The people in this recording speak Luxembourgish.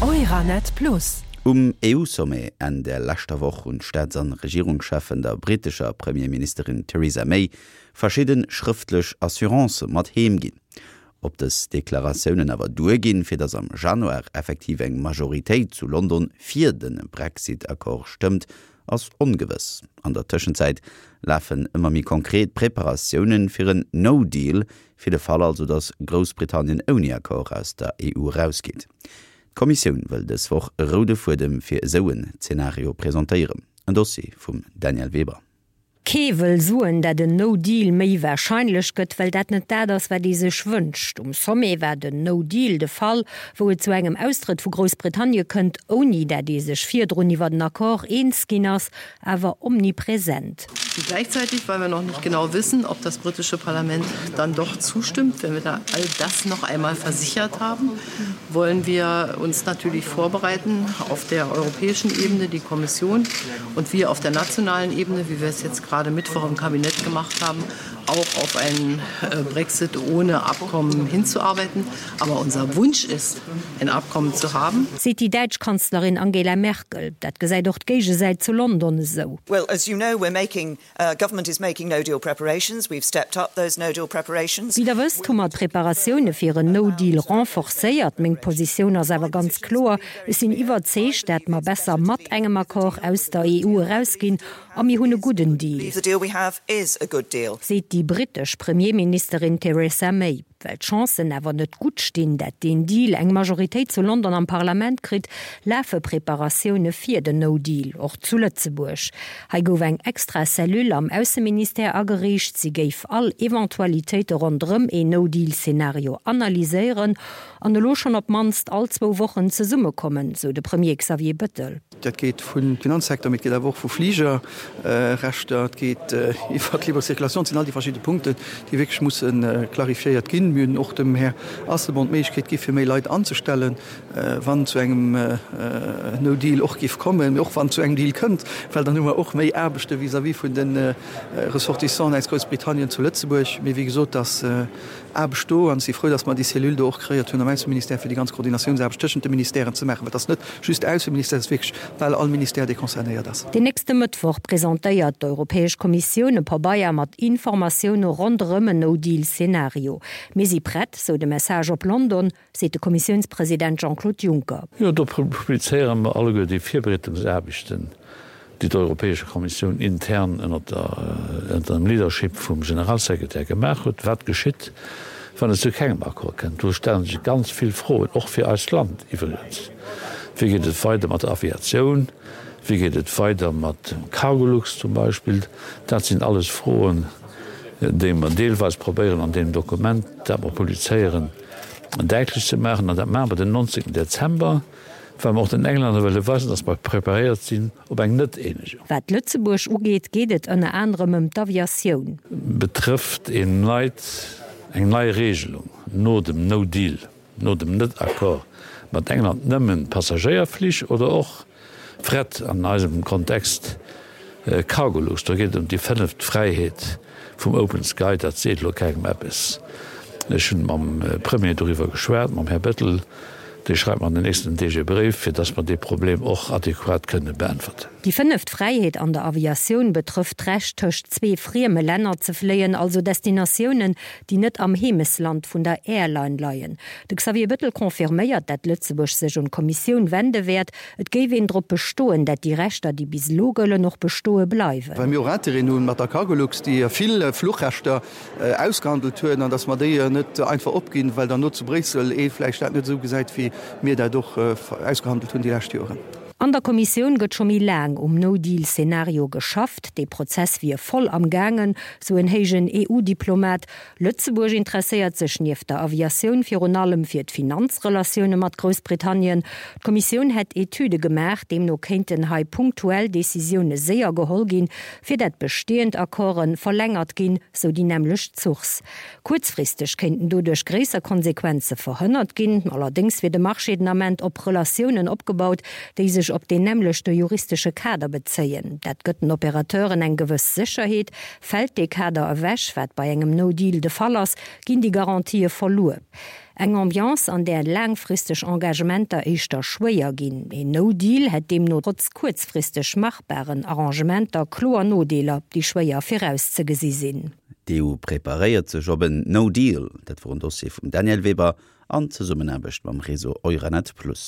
Euranet Plus. Um EU-Sommet Enn der leschter Woch hunn d'Staats an Regierungscheffen der brittescher Premierministerin Theresa May verschidde schrëftlech Assurancë mat heem ginn. Ob dës Deklaratiounen awer duerginn, fir datt am Januar effektiv eng Majoritéit zu London fir de Brexit-Accord stëmmt, ass ongewëss. An der Tëschenzäit lafen ëmmer méi konkret Preparatioune fir en No-Deal, fir de Fall also, datt Groussbritannien ouni Accord aus der EU erausgeet. D'Kommissioun wëll dës Woch e roude Fuedem fir esou en Zenario presentéieren. En Dossier vum Danièle Weber. Kee wëll soen, dat en No Deal méi warscheinlech gëtt, well dat net dat ass, wat ee sech wënscht. Um Sommet war den No Deal de Fall, wou et zu engem Austrëtt vu Groussbritannie kënnt, ouni dat ee sech virdrun iwwer en Accord eens ginn ass, awer omnipresent. Gleichzeitig, weil wir noch nicht genau wissen, ob das britische Parlament dann doch zustimmt, wenn wir da all das noch einmal versichert haben, wollen wir uns natürlich vorbereiten auf der europäischen Ebene, die Kommission und wir auf der nationalen Ebene, wie wir es jetzt gerade Mittwoch im Kabinett gemacht haben, auch auf einen äh, Brexit ohne Abkommen hinzuarbeiten. Aber unser Wunsch ist, ein Abkommen zu haben. Seet déi däitsch Kanzlerin Angela Merkel. Dat gesäit och d'Géigesäit zu London esou. Well, as you know, we're making Government is making no deal preparations. We've stepped up those no deal preparations. Wéi der wësst, hu mer d'Preparatioune fir en No Deal renforcéiert. Meng Positioun ass awer ganz kloer, Ech sinn iwwerzeegt, dat mer besser mat engem Accord aus der EU erausginn a mir hunn e gudden Deal. Seet déi brittesch Premierministerin Theresa May. Well d'Chancen awer net gutt stinn, dat deen Deal eng Majoritéit zu London am Parlament kritt, lafe Preparatioune fir den No Deal, och zu Lëtzebuerg. Hei gouf eng extra Cellule am Ausseministère ageriicht. Si géif all Eventualitéite ronderëm een No Deal-Szenario analyséieren an elo schonn op d'mannst all zwou Wochen zesummekommen, sou de Premier Xavier Bettel. Dat geet vum Finanzsecteur, mee et geet awer och vu Fligerrechter, et geet iwwert d'libre Circulation. Et sinn all déi verschidde Punkten, déi wierklech musse clarifiéiert ginn. Mir hunn och dem Här Asselborn d'Méiglechkeet gi fir méi Leit anzestellen, wann zu engem No Deal och géif kommen, mee och wann et zu engem Deal kënnt, well dann hu mer och méi Aarbechte vis-à-vis vun de Ressortissanten aus Groussbritannien zu Lëtzebuerg. Mee wéi gesot, dass Aarbecht do an ech si frou, dass mer déi Cellule do och kreéiert hunn am Ausseministère, fir déi ganz Koordinatiounsaarbecht tëschent de Ministèren ze maachen, well et ass net just de Ausseministère, et ass wierklech bal all Ministère, dee concernéiert ass. Den nächste Mëttwoch presentéiert d'Europäesch Kommissioun e Pabeier mat Informatioune ronderëm en No-Deal-Szenario. Mir si prett, sou de Message op London, seet de Kommissiounspresident Jean-Claude Juncker. Jo, do publizéiere mer alleguer déi Virbereedungsaarbechten, déi d'Europäesche Kommissioun intern ënnert dem Leadership vum Generalsekretär gemaach huet, wat geschitt, wann et zu kengem Accord kënnt. Do stelle sech ganz vill Froen, och fir eist Land iwwregens. Wéi geet et weider mat der Aviatioun? Wéi geet et weider mat dem Cargolux zum Beispill? Dat sinn alles Froen, déi mer deelweis probéieren an deem Dokument, dat mer publizéieren, däitlech ze maachen. An dat maache mer den 19 Dezember. Well mer och den Englänner wëlle weisen, datt mer preparéiert sinn op eng Net-Eenegung. Wat Lëtzebuerg ugeet, geet et ënner anerem ëm d'Aviatioun. Betrëfft een neit, eng nei Regelung no dem No Deal, no dem Net-Accord mat England nëmmen d'Passagéierflich oder och Fret, an eisem Kontext Cargolux? Do geet et ëm déi fënneft Fräiheet vum Open Sky. Dat seet elo kengem eppes. Ech hunn mam Premier doriwwer geschwat, mam Här Bettel. Dee schreift mer an den nächsten Deeg e Bréif, fir dass mer dee Problem och adequat kënne beäntwerten. Déi fënneft Fräiheet an der Aviatioun betrëfft d'Recht, tëscht zwee frieme Länner ze fléien, also Destinatiounen, déi net am Heemesland vun der Airline leien. De Xavier Bettel confirméiert, dat Lëtzebuerg sech un d'Kommissioun wende wäert. Et géif een drop bestoen, dat déi Rechter, déi bis elo gëllen, och bestoe bleiwen. Well mir och Intérêten hu mat der Cargolux, déi vill Fluchrechter ausgehandelt hunn, an datt mer déi net einfach opginn, well dann no zu Bréissel ee vläicht dat net esou gesäit, wéi mir dat och ausgehandelt hunn déi lescht Joren. An der Kommissioun gëtt scho méi laang um No-Deal-Szenario geschafft. Dee Prozess wier voll am gaangen, sou en héijen EU-Diplomat. Lëtzebuerg interesséiert sech nieft der Aviatioun virun allem fir d'Finanzrelatioune mat Groussbritannien. D'Kommissioun hätt Etüde gemaach, deemno kéinten hei punktuell Decisioune séier geholl ginn, fir dat bestehend Accorden verlängert ginn, sou déi nämmlecht Source. Kuerzfristeg kéinten doduerch gréisser Konsequenze verhënnert ginn. Allerdéngs wier de Marché den Ament op Relatiounen opgebaut, déi sech op deen nämmlechte juristesche Kader bezéien. Dat gëtt den Operateuren eng gewëss Sécherheet. Fält dee Kader ewech, wat bei engem No Deal de Fall ass, ginn déi Garantië verluer. Eng Ambiance, an där laangfristeg Engagementer éischter schwéier ginn. Een No Deal hätt deemno trotz kuerzfristeg machbaren Arrangementer kloer Nodeeler, déi schwéier virauszegesi sinn. D'EU preparéiert sech op en No Deal. Dat wor en Dossier vum Danièle Weber an Zesummenaarbecht mam Réseau Euranet Plus.